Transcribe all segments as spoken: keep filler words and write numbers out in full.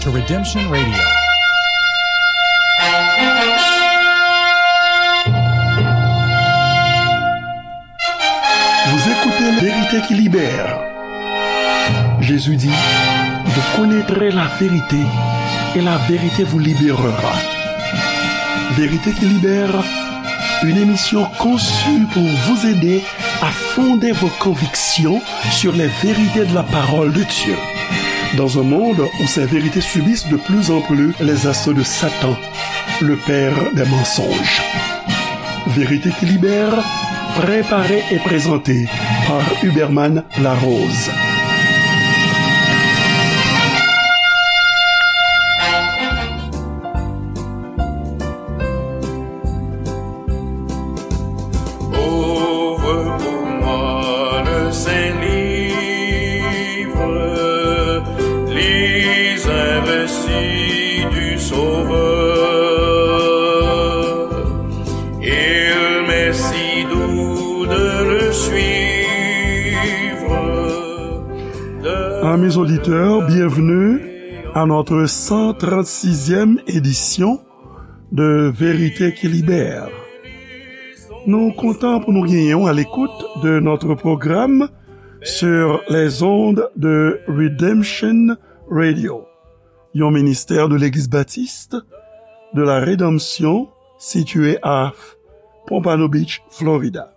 to Redemption Radio. Vous écoutez La Vérité qui libère. Jésus dit, vous connaîtrez la vérité et la vérité vous libérera. Vérité qui libère, une émission conçue pour vous aider à fonder vos convictions sur les vérités de la parole de Dieu. Dans un monde où ces vérités subissent de plus en plus les assauts de Satan, le père des mensonges. Vérité qui libère, préparée et présentée par Huberman Larose. Ouvre pour moi le Saint-Livre, lis un récit du Sauveur. Il m'est si doux de le suivre. De Amis auditeurs, bienvenue à notre cent trente-sixième édition de Vérité qui libère. Nou kontan pou nou genyen w à l'écoute de notre programme sur les ondes de Redemption Radio, yon ministè de Legliz Batis de la Redanmsyon sitiye a Pompano Beach, Florida.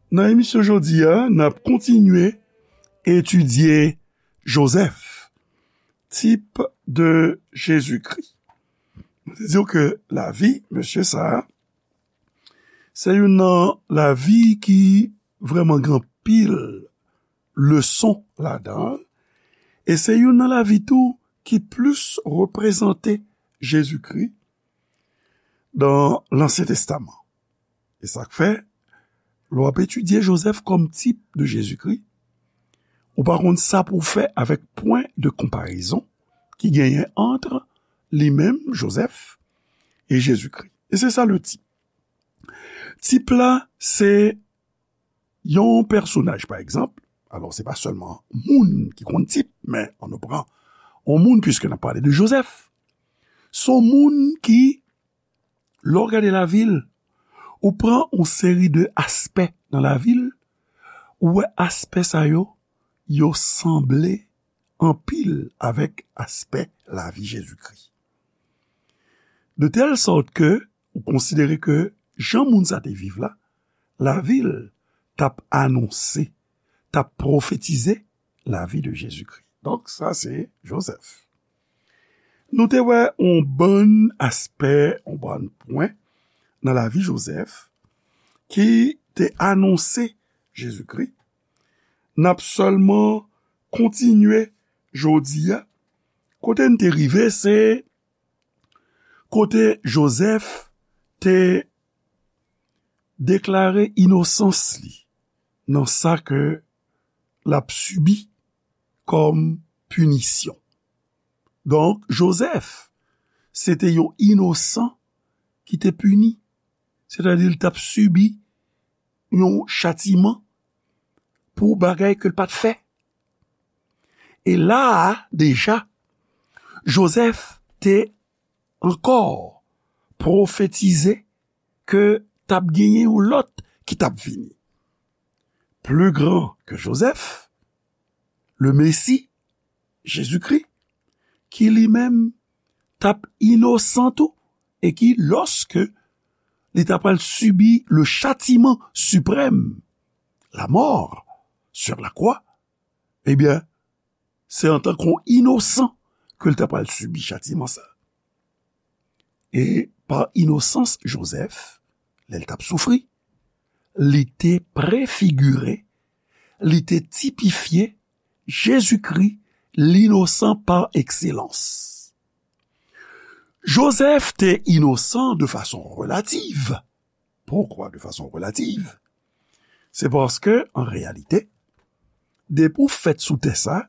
Nan emisyon jodi a, n ap kontinye etidye Jozèf, tip de Jezikri. Nou te di w ke lavi mesye sa a, se youn nan lavi ki vrèman gen anpil leson ladan l, e se youn nan lavi tou ki plis reprezante Jezikri nan Lansyen Testaman. E sa k fè, lè w ap etidye Jozèf kòm tip de Jezikri, ou pa konn sa pou w fè avèk pwen de konparezon ki genyen ant li menm, Jozèf, e Jezikri. E se sa le tip. Tip la, se yon pèsonaj, pa egzanp, alò, se pa sèlman moun ki konn tip, men ann nou pran yon moun, piske n ap pale de Jozèf. Se yon moun ki, lè w gade lavi l, ou pran yon seri de aspè nan lavi l, ou wè aspè sa yo, yo sanble anpil avèk aspè lavi Jezikri. De tèl sòt ke ou konsidere ke jan moun sa te viv la, lavi l t ap anonse, t ap pwofetize lavi de Jezikri. Donk, sa se Jozèf. Nou te wè yon bann aspè, yon bann pwen nan lavi Jozèf ki te anonse Jezikri. N ap sèlman kontinye jodi a. Kote n te rive, se kote Jozèf te deklare inosans li nan sa ke l ap sibi kòm pinisyon. Donk, Jozèf, se te yon inosan ki te pini, sètadi l t ap sibi yon chatiman pou bagay ke l pa t fè. E la a, deja, Jozèf te ankò pwofetize ke t ap genyen yon lòt ki t ap vini. Pli gran ke Jozèf, le Mesi, Jezikri, ki li menm t ap inosan tou, e ki, lòske li t ap pral sibi le châtiment suprême, la mort sur la croix, ebyen, se antanke yon inosan ke l t ap pral sibi chatiman sa. E pa inosans Jozèf, lè l t ap soufri, li te prefigire, li te tipifye Jezikri, linosan pa ekselans. Jozèf te inosan de fason relativ. Poukwa de fason relativ? Se paske, an reyalite, depi w fèt sou tè sa,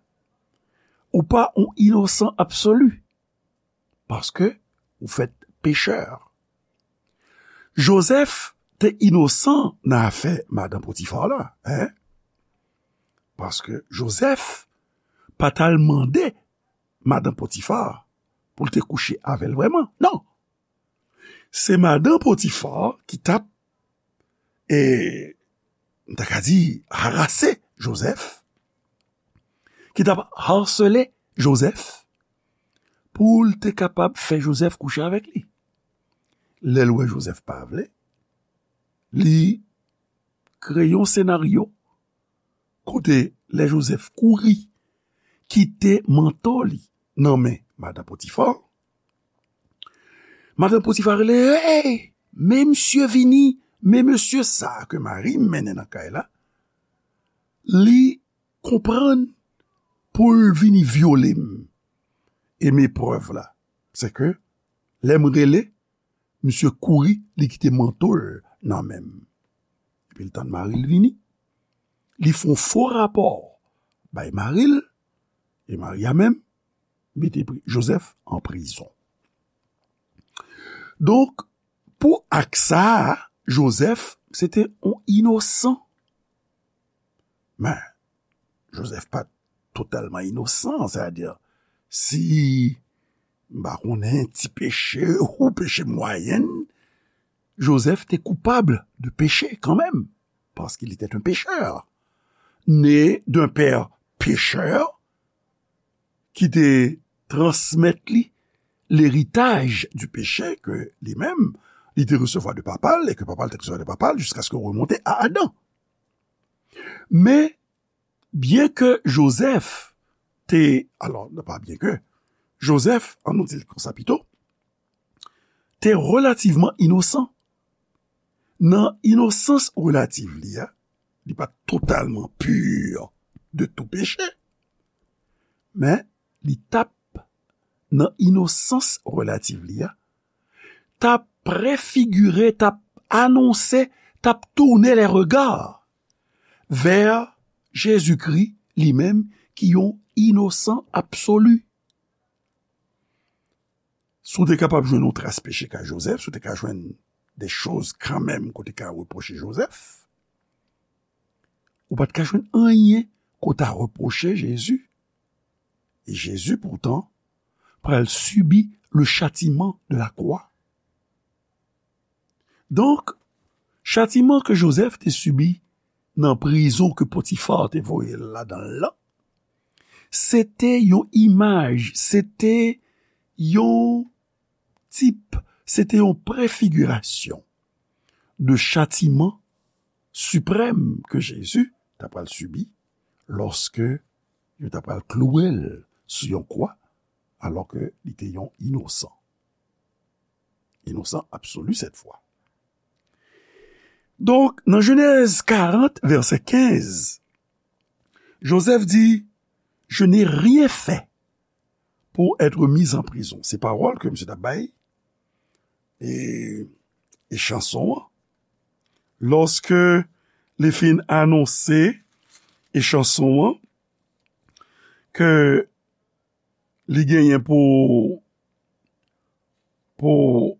ou pa yon inosan absoli. Paske ou fèt pechè. Jozèf te inosan nan afè madan Potifa la, en? Paske Jozèf pa t al mande madan Potifa pou l te kouche avè l vrèman. Non. Se madan Potifa ki t ap, e, m ta ka di, harase Jozèf, ki t ap harsele Jozèf pou l te kapab fè Jozèf kouche avèk li. Lè l wè Jozèf pa vle, li kreye yon senaryo kote lè Jozèf kouri kite manto li nan men madan Potifa, madan Potifa rele, "Hey, men misye vini, men mesye sa a ke mari m mennen nan kay la, li konprann pou l vini vyole m." E men prèv la, se ke lè m rele, misye kouri, li kite manto l nan men m. Epi l tann mari l vini. Li fè yon fo rapò bay mari l, e mari a menm mete pri-, Jozèf an prizon. Donk, pou ak sa a, Jozèf, se te yon inosan. Men, Jozèf pa t totalman inosan, sètadi, si, m pa konnen, ti peche ou peche mwayèn, Jozèf te koupab de peche kanmenm, paske li te yon pechè. Né d'un père pécheur, ki te transmèt li leritaj di peche ke li menm, li te resevwa de papa l e ke papa l te resevwa de papa l jiskaske yo remonte a Adan. Men, byen ke Jozèf te, alò, non pa byen ke, Jozèf, an nou di l konsa pito, te relativman inosan. Nan inosans relativ li a, li pa t totalman pur de tou peche, men li t ap, nan inosans relativ li a, t ap prefigire, t ap anonse, t ap tourner les regards vers Jezikri li menm ki yon inosan absoli. Si w te kapab jwenn yon tras peche kay Jozèf, si w te ka jwenn de choz kanmenm ke w te ka repwoche Jozèf, ou pa t ka jwenn anyen ke w ta repwoche Jezi. E Jezi, poutan, pral sibi le châtiment de la croix. Donk, chatiman ke Jozèf te sibi nan prizon ke Potifa te voye l ladan l lan, se te yon imaj, se te yon tip, se te yon prefigirasyon de chatiman siprèm ke Jezi ta pral sibi lòske yo ta pral klouwe l sou yon kwa, alòske li te yon inosan. Inosan absoli sèt fwa. Donk, nan Jenèz karant, vèsè kenz, Jozèf di, "Je n'ai rien fait pour être mis en prison." Se pawòl ke misye t ap bay, e, e chanson an. Lòske li fin anonse e chanson an, ke li genyen pou, pou,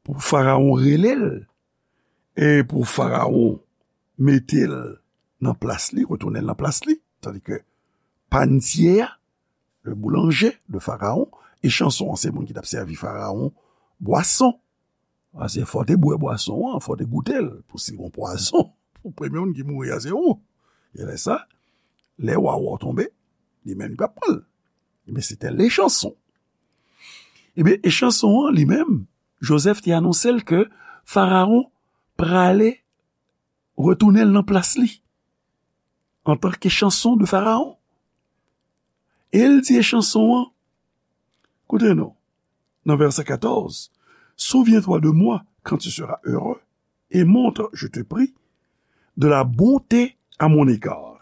pou Farawon rele l, e pou Farawon mete l nan plas li, retounen l nan plas li, tandi ke panitye a, le boulanger de Farawon, e chanson an se moun ki t ap sèvi Farawon bwason. Paske fò w te bwè bwason an, fò w te goute l, pou si l gon pwazon, pou premye moun ki mouri a se ou. E lè sa, lè wa wè w tonbe, li menm li p ap pran l. Ebyen, se te le chanson. Ebyen, e chanson an, li menm, Jozèf te anonse l ke Farawon prale retounen l nan plas li, antanke chanson de Farawon. E l di e chanson an, koute non, nan vèsè katòz, "Souviens-toi de moi quand tu seras heureux, et montre, je te prie, de la bonté à mon égard.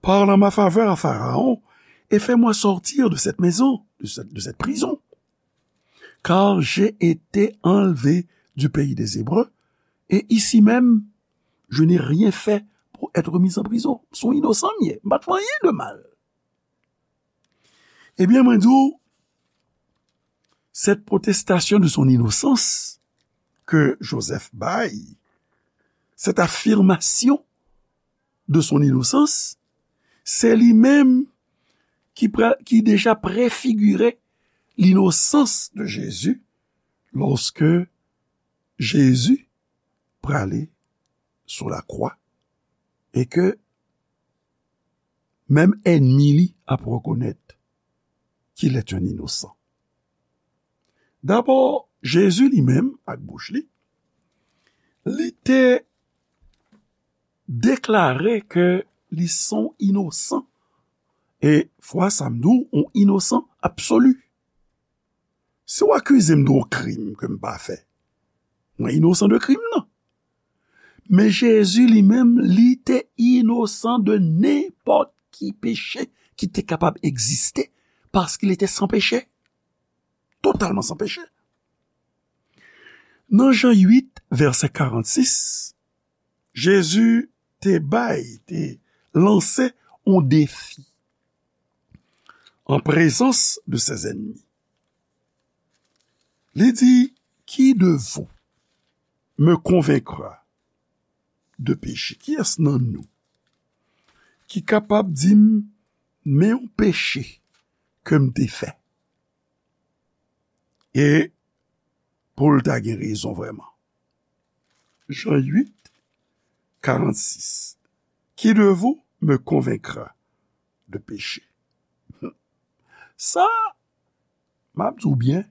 Parle en ma faveur à Pharaon, et fais-moi sortir de cette maison, de cette, de cette prison. Car j'ai été enlevé du pays des Hébreux, et ici même, je n'ai rien fait pour être mis en prison." Se yon inosan m ye, m pa t fè anyen de mal. Ebyen, mwen di w, cette protestation de son innocence ke Jozèf bay, cette affirmation de son innocence, se li menm ki, pra- ki deja prefigire l'innocence de Jésus lorsque Jésus prale sou lakwa e ke menm ènmi li ap rekonèt qu'il est un innocent. Dabò, Jezi li menm, ak bouch li, li te deklare ke li se yon inosan. E fwa sa m di w, yon inosan absoli. Si w akize m de yon krim ke m pa fè, mwen inosan de krim nan. Men Jezi li menm, li te inosan de nenpòt ki peche ki te kapab egziste, paske li te san peche, totalman san peche. Nan Jan uit, vèsè karannsis, Jezi te bay, te lanse yon defi en présence de ses ennemis. Li di, qui de vous me convaincra de péché? Kiyès nan nou ki kapab di m, men yon peche ke m te fè? E pou l ta gen rezon vrèman. Jan uit, karannsis. Qui de vous me convaincra de péché? Sa, m ap di w byen,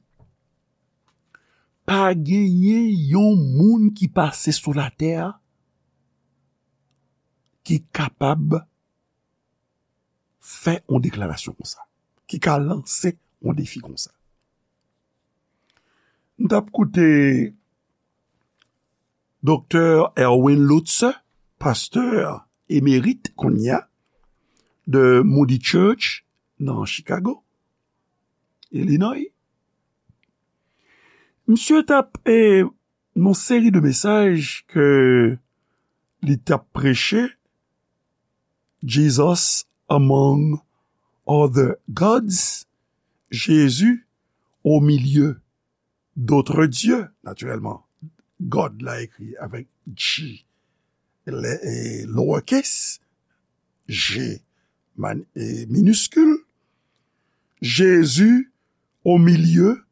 pa genyen yon moun ki pase sou latè a ki kapab fè yon deklarasyon konsa, ki ka lanse yon defi konsa. M t ap koute Doktè Erwin Lutzer, pastè emerit kounye a de Moody Church nan Chicago, Illinois. Misye t ap, e, nan seri de mesaj ke li t ap preche, Jesus among other gods, Jésus au milieu d'autres dieux, natirèlman, God la ekri avèk G, le- e, lowercase, G man- e, miniskil, Jésus au milieu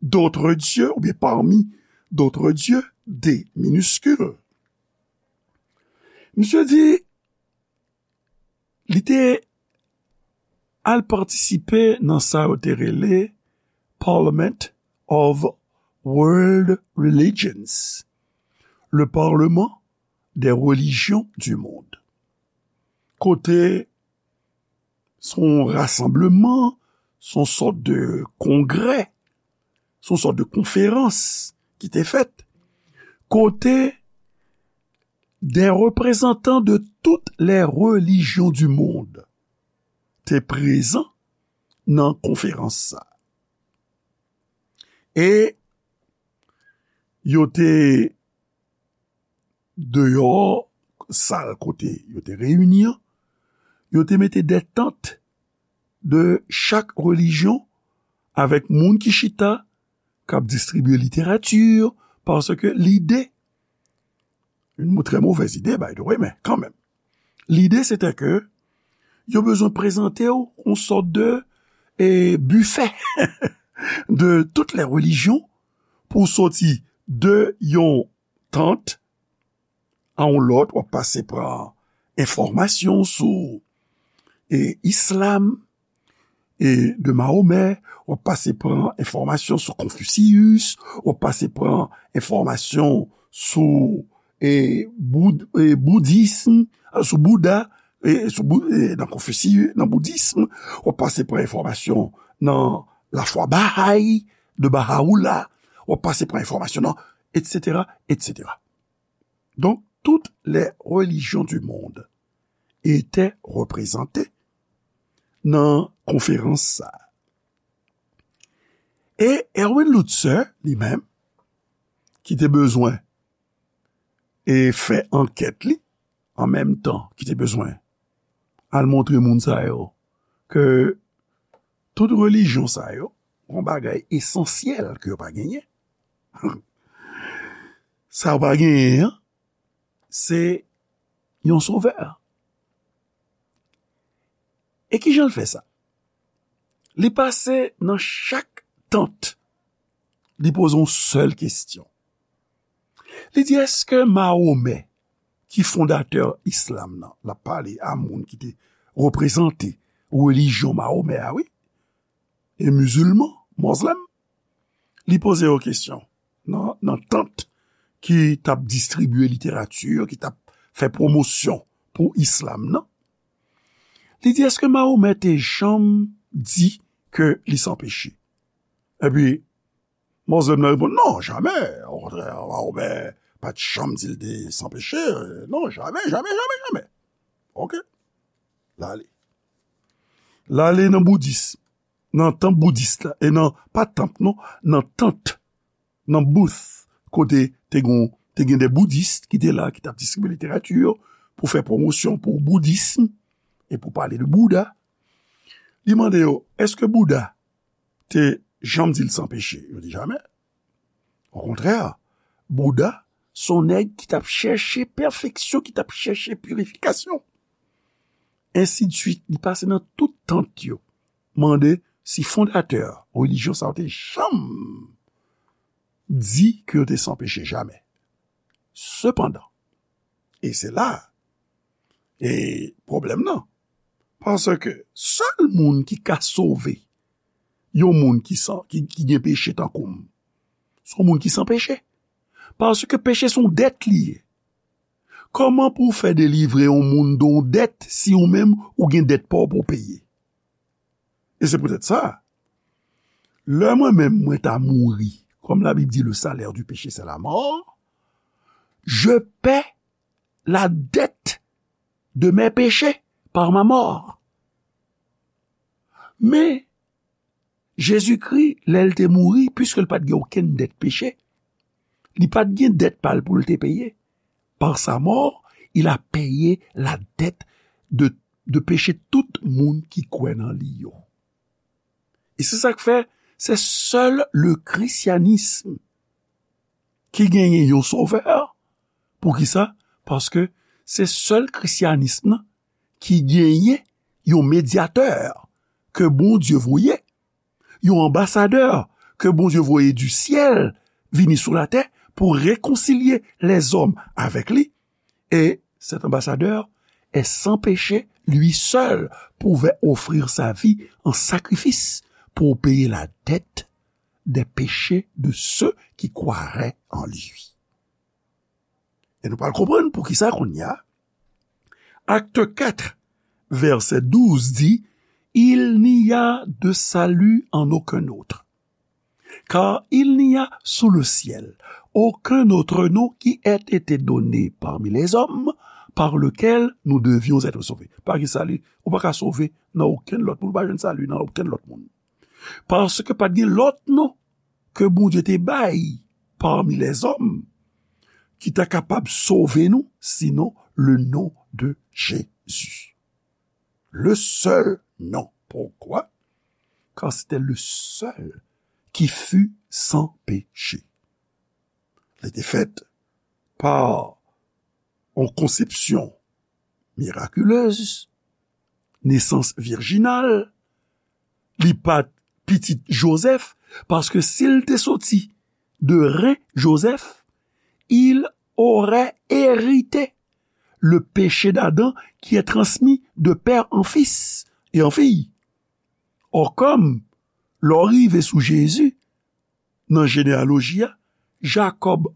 d'autres dieux, oubyen parmi d'autres dieux, D miniskil. Misye di, li te al patisipe nan sa yo te rele Parliament of World Religions, le Parlement des religions du monde. Kote se yon rasanbleman, se yon sòt de kongrè, se yon sòt de konferans ki te fèt, kote des représentants de toutes les religions du monde te prezan nan konferans sa. E yo te deyò sal kote yo te reyini an, yo te mete de tant de chak relijyon avèk moun ki chita, k ap distribye literati, paske lide, une très mauvaise idée, by the way, men kanmenm. Lide, se te ke yo bezwen prezante w yon sòt de, e, bifè de toutes les religions pou w soti de yon tant a yon lòt, w ap pase pran enfòmasyon sou, e, islam, e, de Mahomè, w ap pase pran enfòmasyon sou Konfisiyis, w ap pase pran enfòmasyon sou, e, boud- e, boudism, sou Bouda, e, sou Bou- e, nan Konfisiyis, nan boudism, w ap pase pran enfòmasyon nan lafwa Baha'i, de Bahá'u'lláh, w ap pase pran enfòmasyon nan, et cetera, et cetera. Donc, toutes les religions du monde étaient représentées nan konferans sa. E Erwin Lutzer, li menm, ki te bezwen e fè ankèt li, an menm tan ki te bezwen al montre moun sa yo ke tout relijyon sa yo, yon bagay esansyèl ke yo pa genyen. Sa yo pa genyen an, se yon sovè. E kijan l fè sa? Li pase nan chak tant, li poze yon sèl kesyon. Li di, èske Mahomè, ki fondatè islam nan, l ap pale a moun ki te reprezante relijyon Mahomè a, wi, e mizilman, mozlèm, li poze yo kesyon nan, nan tant ki t ap distribye literati, ki t ap fè pwomosyon pou islam nan. Li di, èske Mahomè te janm di ke li san peche? Epi, mozlèm nan reponn, non, jamè. Okontrè, Mahomè pa t janm di l te san peche. Non, jamè, jamè, jamè, jamè. Oke. L ale. L ale nan boudis, nan tanp boudis la, e nan, pa tanp, non, nan tant, nan booth, kote te gon, te gen de boudis ki te la, ki t ap distribye literati pou fè pwomosyon pou boudism e pou pale de Bouda. Li mande yo, èske Bouda te janm di l san peche? Yo di jamè. Okontrè, Bouda, se yon nèg ki t ap chèche pèfeksyon, ki t ap chèche pirifikasyon. Ensidsuit, li pase nan tout tant yo, mande si fondatè relijyon sa yo te janm di ke yo te san peche, jamè. Sepandan, e se la e pwoblèm nan, paske sèl moun ki ka sove yon moun ki san, ki, ki gen peche tankou m, se yon moun ki san peche. Paske peche se yon dèt li ye. Kòman pou w fè delivre yon moun de yon dèt si ou menm ou gen dèt pa w pou w peye? E se poutèt sa, lè mwen menm mwen ta mouri, comme la Bible dit, le salaire du péché, c'est la mort, je paie la dette de mes péchés par ma mort. Men, Jezikri, lè l te mouri, piske l pa t gen okenn dèt peche, li pa t gen dèt pa l pou l te peye. Par sa mort, il a payé la dette de, de péché tout moun ki kwè nan li yo. E se sa k fè, se sèl le christianisme ki genyen yon sovè. Poukisa? Paske se sèl christianisme nan ki genyen yon medyatè ke Bondye voye, yon anbasadè ke Bondye voye du ciel vini sou latè pou rekonsilye lèzòm avèk li. Et cet ambassadeur est sans péché, lui seul pouvait offrir sa vie en sacrifice pour payer la dette des péchés de ceux qui croiraient en lui. E nou pral konprann poukisa kounye a. Acte quatre, verset douze di, il n'y a de salut en aucun autre. Car il n'y a sous le ciel aucun autre nom qui ait été donné parmi les hommes par lequel nous devions être sauvés. Pa gen sali, ou pa ka sove nan okenn lòt moun, ou pa jwenn sali nan okenn lòt moun. Paske pa t gen lòt non ke Bondye te bay parmi lèzòm ki ta kapab sove nou, sinon le nom de Jésus. Le seul nom. Pourquoi? Car c'était le seul qui fut sans péché. Li te fèt pa yon konsepsyon mirakilez, nesans virjinal, li pa t pitit Jozèf, paske si l te soti de ren Jozèf, il aurait hérité le péché d'Adam qui est transmis de père en fils et en fille. Or, kòm lè w rive sou Jezi, nan jeneyaloji a, Jacob,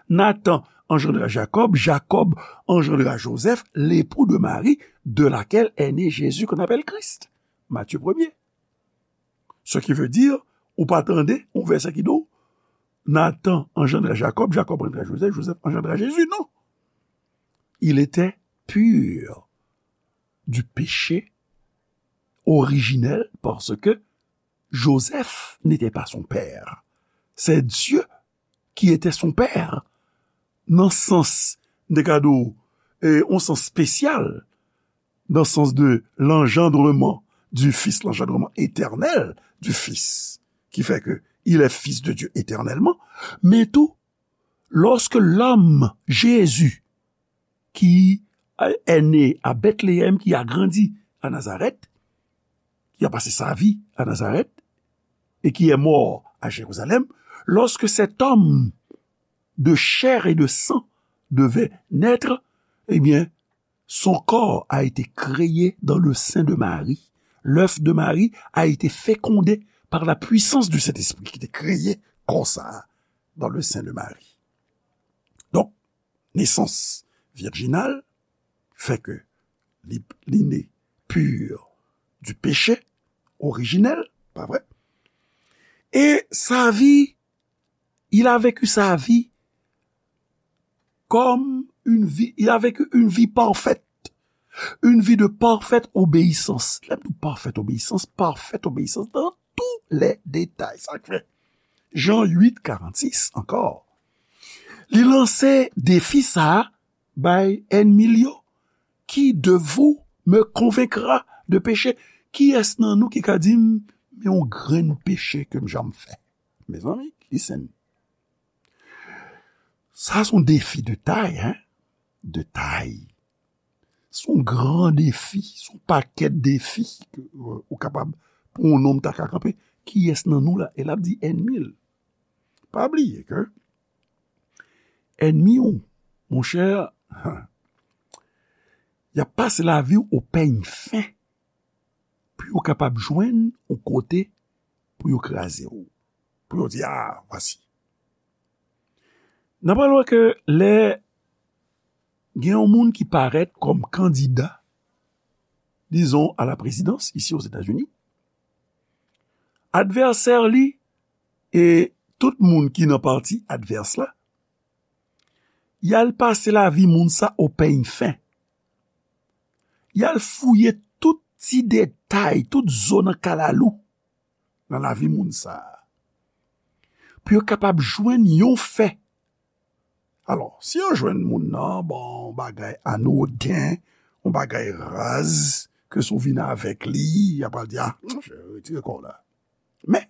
Nathan engendra Jacob, Jacob engendra Joseph, l'époux de Marie, de laquelle est né Jésus qu'on appelle Christ. Matthieu premier. Ce qui veut dire, ou pa tande yon vèsè ki di w, Nathan engendra Jacob, Jacob engendra Joseph, Joseph engendra Jésus. Non. Il était pur du péché originel parce que Joseph n'était pas son père. C'est Dieu qui était son père. Nan sans, m te ka di w, e, yon sans espesyal, dans le sens de l'engendrement du Fils, l'engendrement éternel du Fils, qui fait que il est fils de Dieu éternellement, men tou, lorsque l'homme, Jésus, qui est né à Bethléem, qui a grandi à Nazareth, qui a passé sa vie à Nazareth et qui est mort à Jérusalem, lorsque cet homme de chair et de sang devait naître, eh bien, son corps a été créé dans le sein de Marie. L'œuf de Marie a été fécondé par la puissance du Saint-Esprit ki te kreye kò sa a dans le sein de Marie. Donk, nesans virjinal fè ke li, li ne pur du péché originel, pa vre? Et sa vie, il a vécu sa vie comme une vie, il a vécu une vie parfaite, une vie de parfaite obéissance. Lè m di parfaite obéissance, parfaite obéissance dans tous les détails. Sa k fè Jan uit karannsis ankò. Li lanse defi sa a bay ènmi l yo. Qui de vous me convaincra de péché? Kiyès nan nou ki ka di m, men yon grenn peche ke m janm fè? Mezanmi, listen. Sa se yon defi de tay, hein? De tay. Se yon gran defi, se yon pakèt defi ke, euh, ou kapab, pou yon nonm ta ka kanpe. Kiyès nan nou la? E l ap di ènmi l. Pa bliye ke ènmi w, monchè, y ap pase lavi w o pèny fen pou yo kapab jwenn yon kote pou yo kraze w, pou yo di, "Ah, vwasi." N ap pale ke lè gen yon moun ki parèt kòm kandida, dizon, a la prezidans isi Ozetazini, advèsè li e tout moun ki nan pati advès la, y al pase lavi moun sa o pèny fen. Y al fouye tout ti detay, tout zo nan kalalou nan lavi moun sa a, pou yo kapab jwenn yon fè. Alò, si yo jwenn moun nan, bon, yon bagay anoden, yon bagay raz, ke si w vin avèk li, y ap pral di, "Ah, monchè, retire kò w la." Men,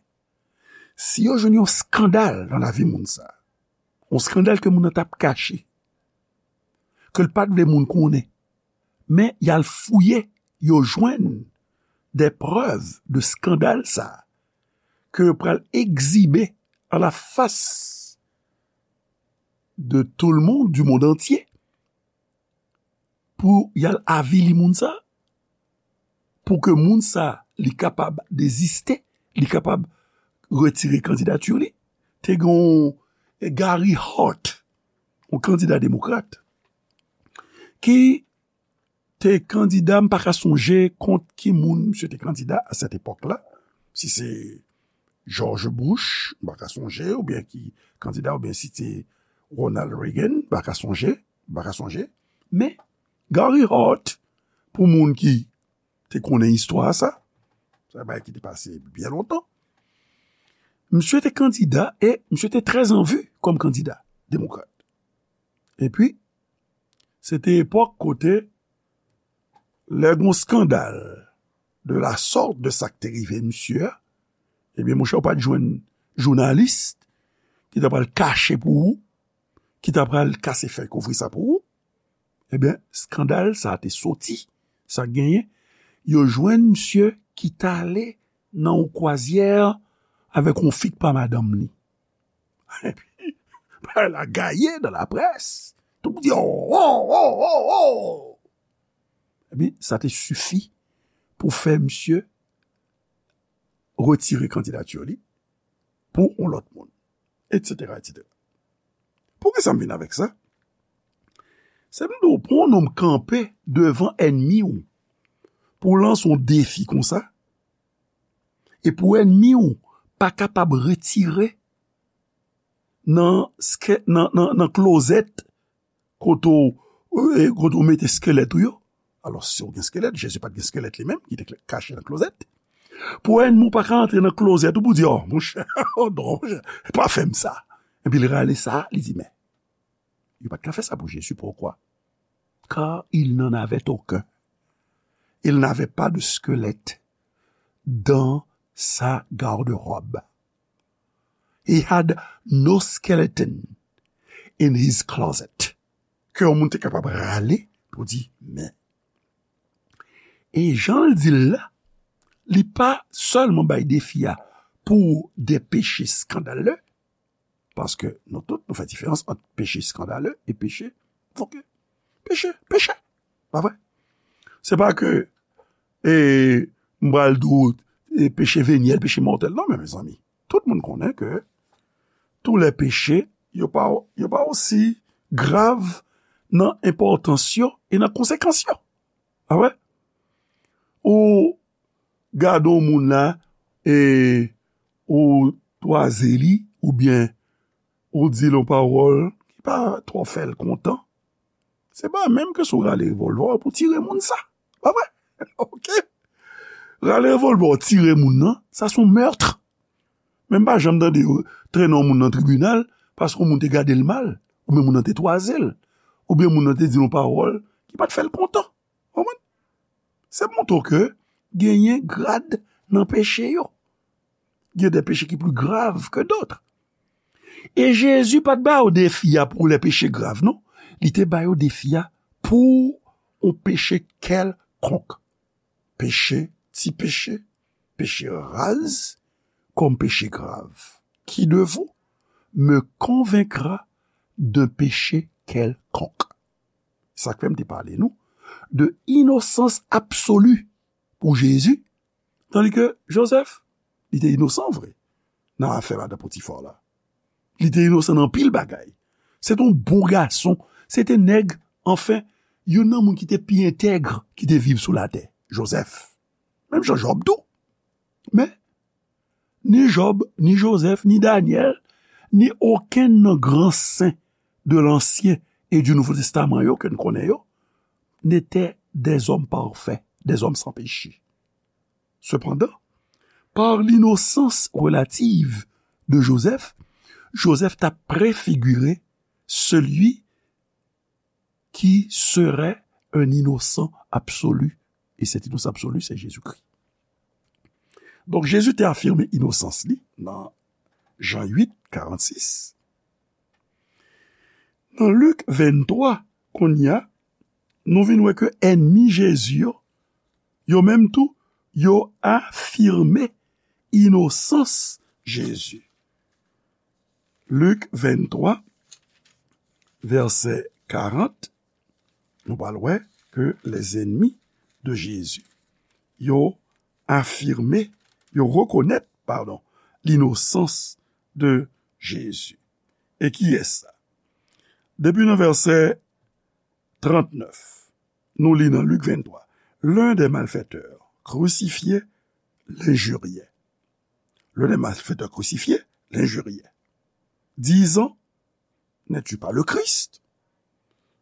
si yo jwenn yon eskandal nan lavi moun sa, yon eskandal ke moun nan t ap kache, ke l pa t vle moun konnen, men y al fouye, yo jwenn des preuves de eskandal sa, ke yo pral egzibe à la face de tout le monde, du monde entier, pou y al avili moun sa, pou ke moun sa, li kapab deziste, li kapab retire kandidati li. Te gen yon Gary Hart, yon kandida demokrat, ki te kandida, m pa ka sonje kont ki moun misye te kandida a sèt epòk la, si se George Bush, m pa ka sonje, oubyen ki kandida, oubyen si se Ronald Reagan, m pa ka sonje, m pa ka sonje. Men, Gary Hart, pou moun ki te konnen istwa sa, se yon bagay ki te pase byen lontan, misye te kandida e misye te trè an vi kòm kandida demokrat. Epi, se te epòk kote, lè gen yon eskandal de la sorte de sa k te rive misye a, ebyen, monchè, ou pa t jwenn jounalis ki ta pral kache pou ou, ki ta pral kase fèy kouvri sa pou ou. Ebyen, eskandal sa a te soti. Sa k genyen, yo jwenn misye ki t ale nan yon kwazyè avèk yon fi k pa madanm li. Epi, bagay la gaye nan laprès. Tout moun di, "Oh, oh, oh, oh, oh!" Epi, sa te sifi pou fè misye retire kandidati li pou yon lòt moun, etsetera, etsetera. Poukisa m vin avèk sa? Se m di w, pou yon nonm kanpe devan ènmi w, pou w lanse yon defi konsa, e pou ènmi w pa kapab retire nan, nan, nan, nan klozèt kote w, e, kote w mete eskelèt ou yo. Alò, si w gen eskelèt, Jezi pa t gen eskelèt li menm, ki te kache nan klozèt. Pou ènmi w pa ka antre nan klozèt ou pou di, "Oh, monchè, oh non, monchè, pa fè m sa." Epi l rale sa, li di, "Men, yo pa t ka fè sa pou Jezi, poukwa?" Car il n'en avait aucun. Il n'avait pas de squelette dans sa garde-robe. He had no skeleton in his closet. Ke yon moun te kapab rale pou di, men. E jan l di l la, li pa sèlman bay defi a pou de peche skandale, paske nou tout, nou fè diferans ant peche skandale e peche, oke, peche, peche, pa vre? Se pa ke, e, m pral di w, e, peche venyèl, peche mòtèl, non, men, mezanmi, tout moun konnen ke tou lè peche, yo pa, yo pa osi grav nan enpòtans yo e nan konsekans yo. Pa vre? Ou gade yon moun la, e ou twaze li, oubyen ou di l yon pawòl ki pa twò fè l kontan, se pa menm ke si w rale revòlvè w pou tire moun sa. Pa vre? Oke? Rale revòlvè w tire moun nan, sa se yon mèt. Men m pa janm tande yo trennen yon moun nan tribinal paske yon moun te gade l mal, oubyen moun nan te twaze l, oubyen moun nan te di l yon pawòl ki pa t fè l kontan. Konprann? Se montre ke genyen grad nan peche yo. Gen de peche ki pli grav ke dòt. E Jezi pa t ba yo defi a pou lè peche grav, non. Li te ba yo defi a pou yon peche kèlkonk. Peche, ti peche, peche raz, kòm peche grav. Qui de vous me convaincra d'un péché quelconque? Sa k fè m te pale nou de inosans absoli pou Jezi, tandi ke Jozèf, li te inosan vre nan afè madan Potifa la. Li te inosan nan anpil bagay. Se te yon bon gason. Se te nèg, anfen, youn nan moun ki te pi entèg ki te viv sou latè. Jozèf. Menm jan Jòb tou. Men, ni Jòb, ni Jozèf, ni Danyèl, ni okenn nan gran sen de l'Ancien et du Nouveau Testament yo ke n konnen yo, n'étaient des hommes parfaits, des hommes sans péché. Cependant, par l'innocence relative de Joseph, Joseph t'a préfiguré celui qui serait un innocent absolu. Et cet innocent absolu, c'est Jésus-Christ. Donk, Jezi te afime inosans li nan Jan uit, karannsis. Nan Lik venntwa, kounye a, nou vin wè ke ènmi Jezi yo, yo menm tou, yo afime inosans Jezi. Lik venntwa, vèsè karant, nou pral wè ke les ennemis de Jésus, yo afime, yo rekonèt, padon, l'innocence de Jésus. E kiyès sa? Depi nan vèsè trannèf, nou li nan Lik venntwa, l'un des malfaiteurs crucifiés l'injuriait. L'un des malfaiteurs crucifiés l'injuriait, disant, n'es-tu pas le Christ?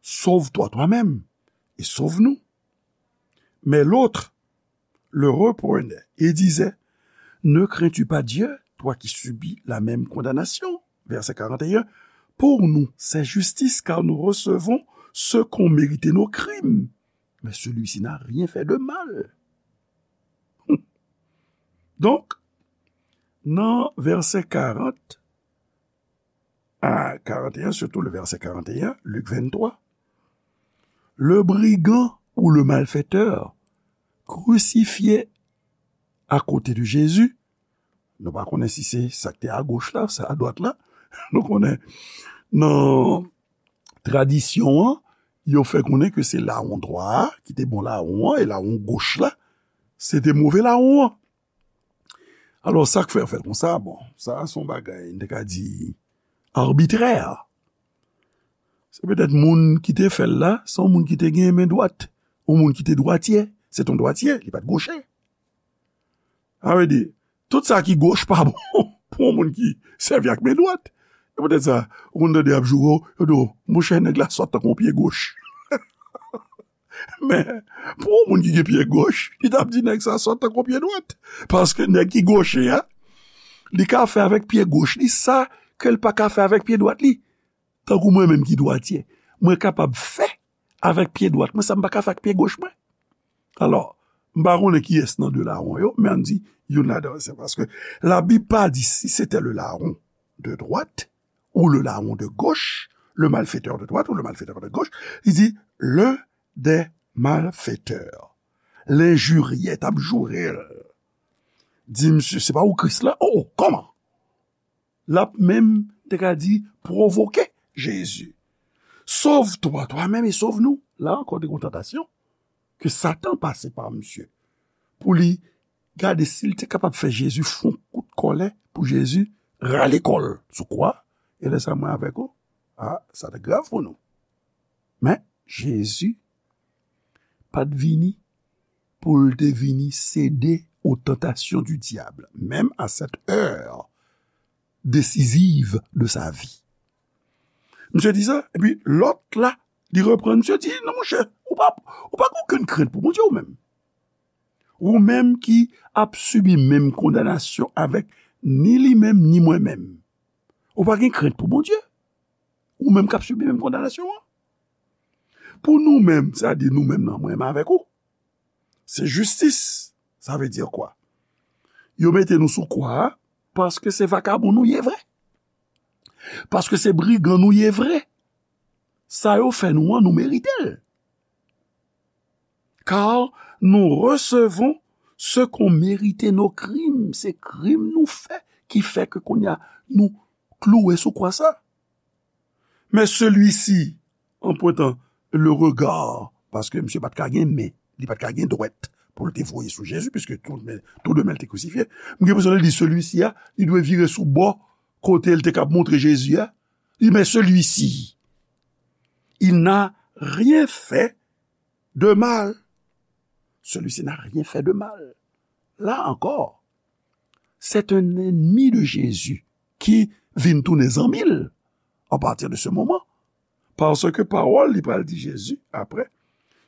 Sauve-toi toi-même et sauve-nous. Mais l'autre le reprenait et disait, ne crains-tu pas Dieu, toi qui subis la même condamnation? Verset quarante et un. Pour nous, c'est justice, car nous recevons ce qu'ont mérité nos crimes. Mais celui-ci n'a rien fait de mal. Donk, nan vèsè karant a karant e en, sitou le vèsè karant e en, Lik venntwa, le brigand ou le malfaiteur crucifié à côté de Jésus, nou pa konnen si se sa k te agoch la, sa adwat la, nou konnen nan tradisyon an, yo fè konnen ke se lawon dwat a ki te bon lawon an, e lawon goch la, se te move lawon an. Alò, sa k fè yo fè l konsa, bon, sa se yon bagay, n te ka di, arbitrè. Se petèt moun ki te fè l la, se yon moun ki te gen men dwat, yon moun ki te dwatye, se te yon dwatye, li pa t goche. Sa vle di, tout sa ki goch pa bon pou yon moun ki sèvi ak men dwat. Se poutèt sa, ou konn tande y ap joure w, yo di w, monchè, nèg la sòt tankou yon pye goch. Men, pou yon moun ki gen pye goch, li t ap di nèg sa sòt tankou pye dwat. Paske nèg ki goche a, li ka fè avèk pye goch li sa ke l pa ka fè avèk pye dwat li. Tankou mwen menm ki dwatye, mwen kapab fè avèk pye dwat mwen sa m pa ka fè ak pye goch mwen. Alò, m pa konnen kiyès nan de lawon yo, men ann di youn ladan yo, se paske Labib pa di si se te le larron de droite ou le larron de gauche, le malfaiteur de droite ou le malfaiteur de gauche, li di l'un des malfaiteurs. L enjirye, t ap joure l. di misye, se pa ou Kris la? Oh, oh, kòman? L ap menm, te ka di, pwovoke Jezi. Sauve-toi toi-même et sauve-nous. La ankò, te gen yon tantasyon ke Satan pase pa misye pou li gade si l te kapab fè Jezi fè yon kout kòlè, pou Jezi rale kò l sou kwa. E lè sa, mwen avèk ou, a, sa te grav pou nou. Men, Jezi pa t vini pou l te vini sede aux tentations du diable, même à cette heure décisive de sa vie. Misye di sa, epi lòt la, li reprann misye, di, non, monchè, ou pa, ou pa gen okenn krent pou Bondye ou menm. Ou menm ki ap sibi menm kondanasyon avèk ni li menm, ni mwen menm. Ou pa gen krent pou Bondye. Ou menm k ap sibi menm kondanasyon an. Pou nou menm, sa di nou menm nan, mwen menm avèk ou, se jistis. Sa vle di kwa? Yo mete nou sou kwa a paske se vakabon nou ye vre. Paske se brigan nou ye vre. Sa yo fè nou an, nou merite l. Car nous recevons ce qu'ont mérité nos crimes. Se krim nou fè ki fè ke kounye a nou klouwe sou kwa sa. Mais celui-ci, en pointant le regard, paske misye pa t ka gen men, li pa t ka gen dwèt pou l te voye sou Jezi, piske tou de men, tou de men l te krisifye. M gen enpresyon lè l di celui-ci a, li dwe vire sou bò kote l te kab montre Jezi a. Li, mais celui-ci, il n'a rien fait de mal. Celui-ci n'a rien fait de mal. Là encore, c'est un ennemi de Jésus qui vin tounen zanmi l à partir de ce moment. Paske pawòl li pral di Jezi apre,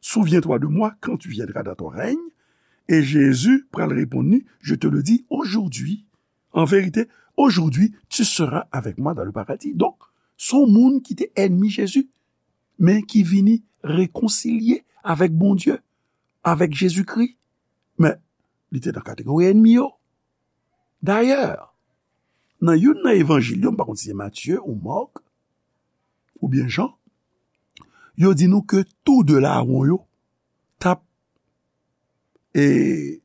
souviens-toi de moi quand tu viendras dans ton règne. E Jezi pral reponn li, je te le dis aujourd'hui. En vérité, aujourd'hui, tu seras avec moi dans le paradis. Donk, se yon moun ki te ènmi Jezi, men ki vini rekonsilye avèk Bondye, avèk Jezikri. Men, li te nan kategori ènmi yo. Dayè, nan youn nan evanjil yo, m pa konn si se Matye ou Mak, oubyen Jan, yo di nou ke tou de lawon yo t ap, e,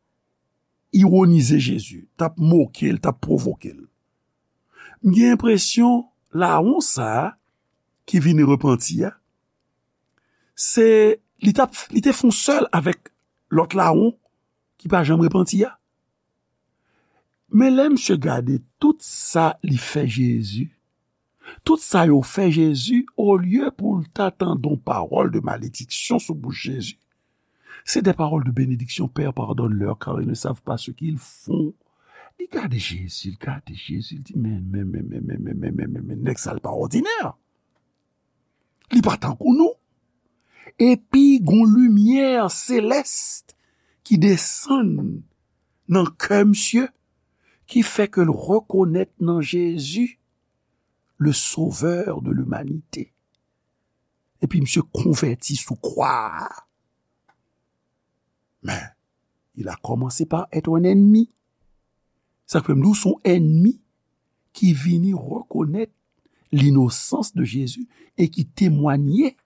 iwonize Jezi, t ap moke l, t ap pwovoke l. M gen enpresyon lawon sa a ki vini repanti a, se, li t ap, li te fè yon sèl avèk lòt lawon ki pa janm repanti a. Men lè misye gade tout sa li fè Jezi, tout sa yo fè Jezi, olye pou l ta tande yon pawòl de malediksyon sou bouch Jezi, c'est des paroles de bénédiction, Père, pardonne-leur, car ils ne savent pas ce qu'ils font. Li gade Jezi, li gade Jezi, li di, men, men, men, nèg sa l pa òdinè. Li pa tankou nou. Epi gon limyè selès ki desann nan kè misye, ki fè ke l rekonèt nan Jezi le Sauveur de l'humanité. Epi misye konvèti sou kwa a. Men, il a commencé par être un ennemi. Sa k fè m di w se yon ènmi ki vini rekonèt l'innocence de Jésus et qui témoignait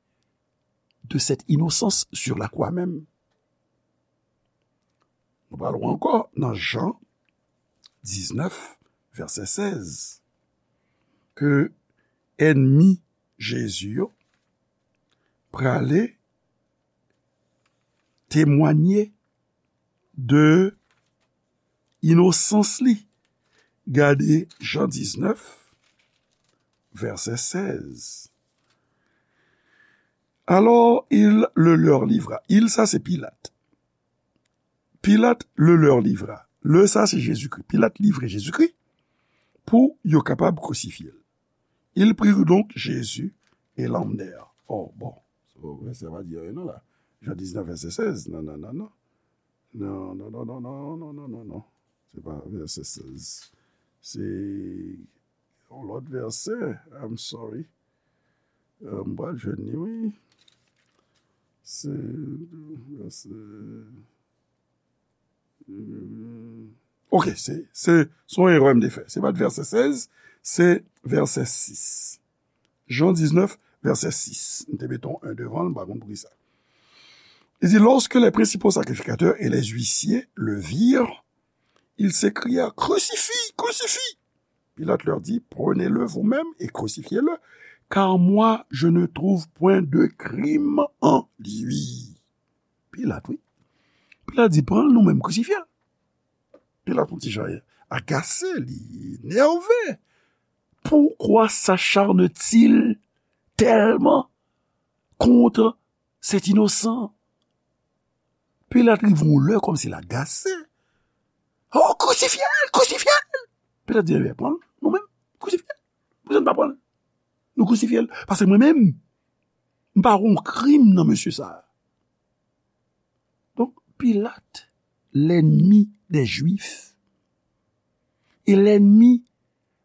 de cette innocence sur la croix même. Nou pral wè ankò nan Jan diznèf, vèsè sèz, ke ènmi Jezi yo prale temwanye de inosans li. Gade Jan diznèf, vèsè sèz. Alors il le leur livra. Il, sa se Pilat. Pilat le leur livra. Le, sa se Jezikri. Pilat livre Jezikri pou yo kapab krisifye l. Ils prirent donc Jésus et l'emmenèrent. Oh, bon. Sa pa di anyen non la. Jan diznèf, vèsè sèz. Non, non, non, non. Non, non, non, non, non, non, non, non, non. Se pa vèsè sèz. Se yon lòt vèsè. I'm sorry. Euh, m pral jwenn li, wi. Se vèsè. Ok, se, se, se yon erè m te fè. Se pa t vèsè sèz, se vèsè sis. Jan diznèf, vèsè sis. M te mete yon en devan l, m pa konn poukisa. Li di, lorsque les principaux sacrificateurs et les huissiers le virent, ils s'écrièrent : « Crucifie, crucifie ! » Pilate leur dit : « Prenez-le vous-même et crucifiez-le, car moi, je ne trouve point de crime en lui. » Pilat, wi. Pilat di : « Pran l nou menm, krisifye l. » Pilat, yon ti jan agase, li enève. Pourquoi s'acharne-t-il tellement contre cet innocent ? Pilat rive yon lè kòmsi l agase. « Oh, krisifye l, krisifye l ! » Pilat di : « Ebyen, pran l nou menm, krisifye l. Poukisa n pa pran l? Nou krisifye l. Paske mwen menm, m pa wè yon krim nan mesye sa a. » Donk, Pilat, lènmi dè Jwif, e lènmi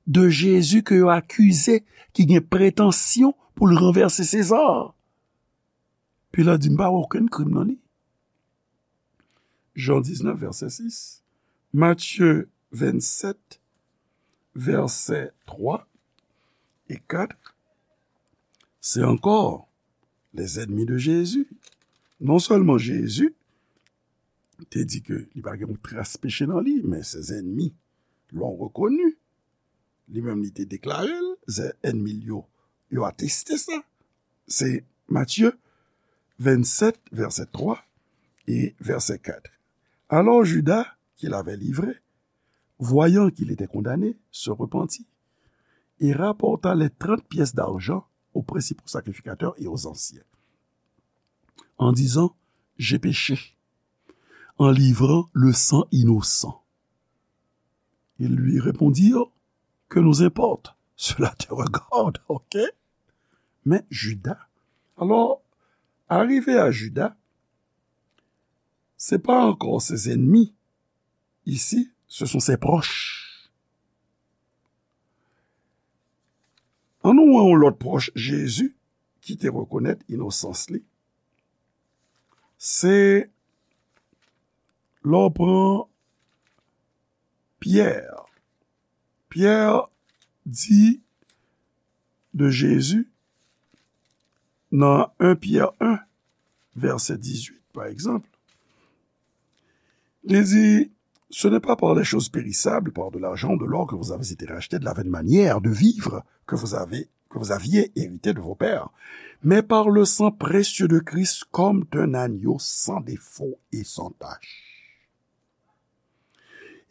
de Jezi ke yo akize, ki gen pretansyon pou l ranvèse Seza. Pilat di, m pa wè okenn krim nan li. Jan diznèf, vèsè sis, Matye vennsèt, vèsè twa e kat, se ankò les ennemis de Jésus. Non sèlman Jezi te di ke li pa gen yon tras peche nan li, men ses ennemis l'ont reconnu. Li menm, li te deklare l, se enmi l yo, yo ateste sa. Se Matye vennsèt, vèsè twa e vèsè kat. Alors Judas, qui l'avait livré, voyant qu'il était condamné, se repentit et rapporta les trente pièces d'argent aux principaux sacrificateurs et aux anciens, en disant : « J'ai péché en livrant le sang innocent. » Ils lui répondirent : « Que nous importe ? Cela te regarde, ok ? » Men Juda, alò, arive a Juda, se pa ankò ses ennemis. Ici, ce sont ses proches. Ann nou wè yon lòt pwòch Jezi ki te rekonèt inosans li. Se lè w pran Pyè. Pyè di de Jezi nan en Pyè en, vèsè dizuit, pa egzanp, li di, ce n'est pas par les choses périssables, par de l'argent ou de l'or que vous avez été rachetés de la vaine manière de vivre que vous avez, que vous aviez hérité de vos pères, mais par le sang précieux de Christ comme d'un agneau sans défaut et sans tache.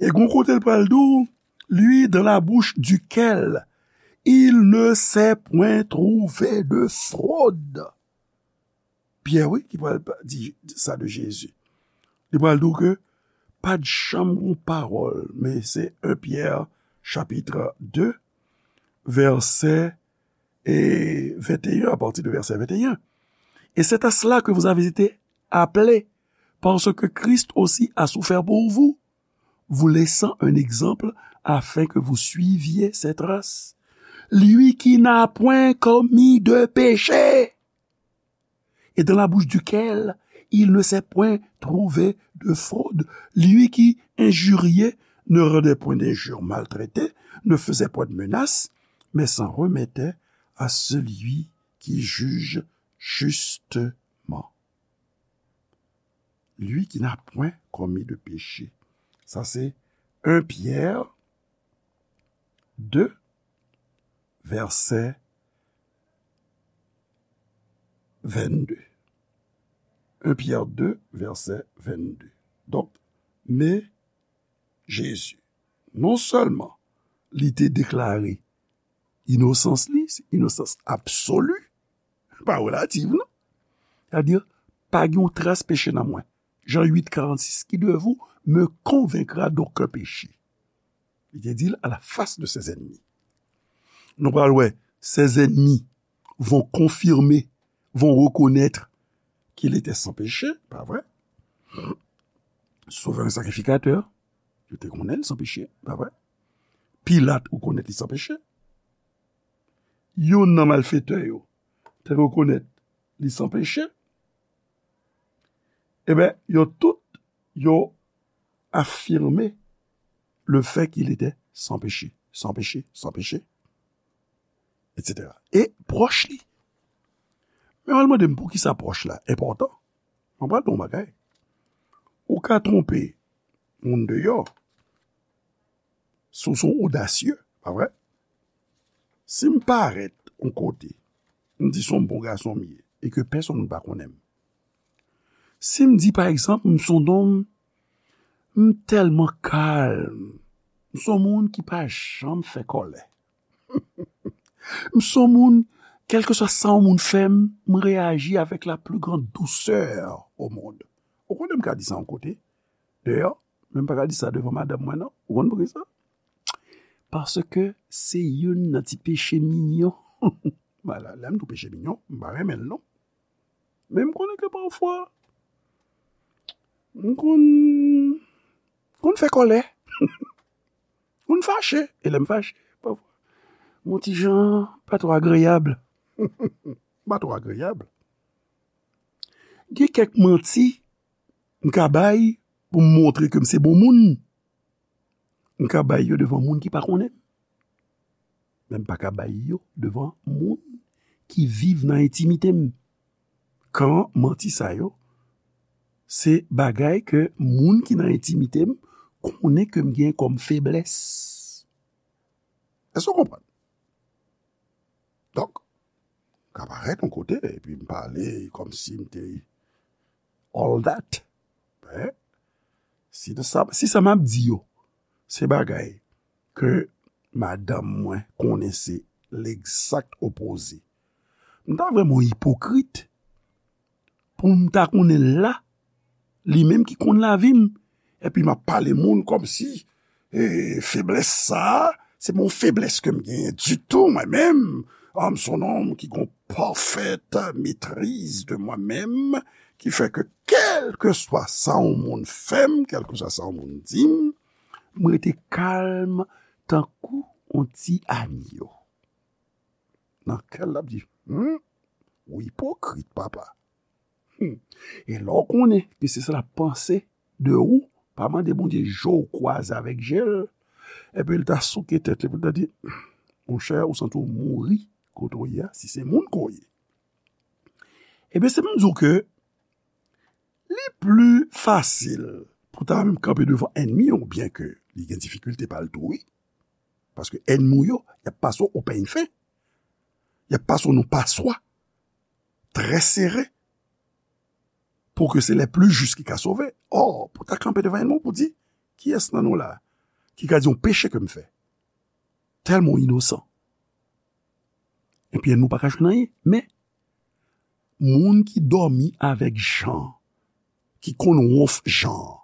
E gon kote l pral di w, lui dans la bouche duquel il ne s'est point trouvé de fraude. Pyè, wi, ki pral pa-, di sa de Jezi. Li pral di w ke pa t janm gon pawòl, men se en Pyè, chapit de, vèsè, e, venteyen, à partir de verset vingt et un. Et c'est à cela que vous avez été appelés, parce que Christ aussi a souffert pour vous, vous laissant un exemple afin que vous suiviez ses traces. Lui qui n'a point commis de péché, et dans la bouche duquel il ne s'est point trouvé de fraude. Lui qui injuriait ne rendait point d'injure maltraitée, ne faisait point de menace, mais s'en remettait à celui qui juge justement. Lui qui n'a point commis de péché. Sa se en Pyè de, vèsè vennde. En Pyè de, vèsè vennde. Donk, men Jezi, non sèlman li te deklare inosans li, se inosans absoli, pa relativ, non. Sètadi, pa gen yon tras peche nan mwen. Jan uit karannsis, qui de vous me convaincra d'aucun péché? Li te di l à la face de ses ennemis. Nou pral wè, ses ennemis vont confirmer, vont reconnaître qu'il était sans péché, pa vre? Sovè sakrifikatè, yo te konnen l san peche, pa vre? Pilat rekonèt li san peche. Youn nan malfetè yo te rekonèt li san peche. Eben, yo tout, yo afime le fait qu'il était sans péché, sans péché, sans péché, et cetera. E pwòch li. Men w al mande m poukisa pwòch la enpòtan. Mwen pral di w yon bagay. Ou ka twonpe moun deyò, Si w se yon odasye, pa vre? Si m parèt yon kote, m di se yon bon gason m ye, e ke pèsonn pa konnen m. Si m di, pa egzanp, m se yon nonm, m tèlman kalm, m se yon moun ki pa janm fè kòlè. M se yon moun, kèlkeswa sa yon moun fè m, m reyaji avèk la pli gran dousè o mond. Ou konnen m ka di sa yon kote, deyò, men m pa ka di sa devan madanm mwen, non. Ou konn poukisa? Paske se youn nan ti peche minyon. Lè m di w peche minyon, m pa renmen l, non. Men m konnen ke pafwa, m konn, konn fè kòlè. Konn fache. E lè m fache, pafwa, m yon ti jan pa twò agreyab. Pa twò agreyab. Gen kèk manti m ka bay pou m montre ke m se bon moun. M ka bay yo devan moun ki pa konnen m. Men m pa ka bay yo devan moun ki viv nan entimite m. Kan manti sa yo, se bagay ke moun ki nan entimite m konnen ke m gen kòm feblès. Èske w konprann? Donk, m ka parèt yon kote, epi m pale kòmsi m te all that. Men, si sa, si sa m ap di yo, se bagay ke madanm mwen konnen se legzak opoze, m ta vrèman ipokrit pou m ta konnen l la, li menm ki konn lavi m, epi m ap pale moun kòmsi, e, feblès sa a, se pa yon feblès ke m genyen ditou, mwen menm. Ah, m se yon nonm ki gen yon pafèt metriz de mwen menm, ki fè ke kèlkeswa sa yon moun fè m, kèlkeswa sa yon moun di m, m rete kalm tankou yon ti anyo. Nan kè l, l ap di, hmm, ou ipokrit, papa. Hmm. E lè w konnen ke se sa l ap panse de ou, pa mande Bondye je w kwaze avèk je l, epi l ta souke tèt li, epi l ta di, monchè, ou santi w mouri kote w ye a, si se moun ke w ye. Ebyen, se pou m di w ke li pli fasil pou ta menm kanpe devan ènmi w, byen ke li gen difikilte pa l tou, wi. Paske ènmi w yo, y ap pase w o pèny fen. Y ap pase w nan paswa trè sere. Pou ke se lè pli jis ki ka sove. Ò, pou ta kanpe devan ènmi w pou di, kiyès nan nou la ki ka di yon peche ke m fè? Tèlman w inosan. Epi ènmi w pa ka jwenn anyen. Men, moun ki dòmi avèk Jan, ki konn wonf Jan,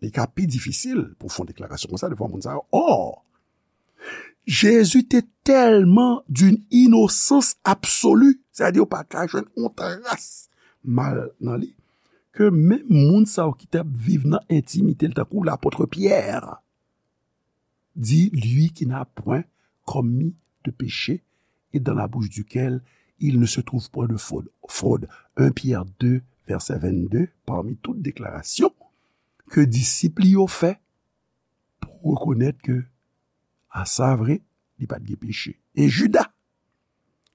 li ka pi difisil pou fè yon deklarasyon konsa devan moun sa yo. Ò, Jezi te tèlman d'une innocence absolue, sètadi ou pa ka jwenn yon tras mal nan li, ke menm moun sa yo ki t ap viv nan entimite l, tankou lapòt Pyè, dit, lui qui n'a point commis de péché et dans la bouche duquel il ne se trouve point de fraude. Fraude. Un Pierre deux, verset vingt-deux, parmi tout deklarasyon ke disip li yo fè pou rekonèt ke, a sa vre, li pa t gen peche. E Jida,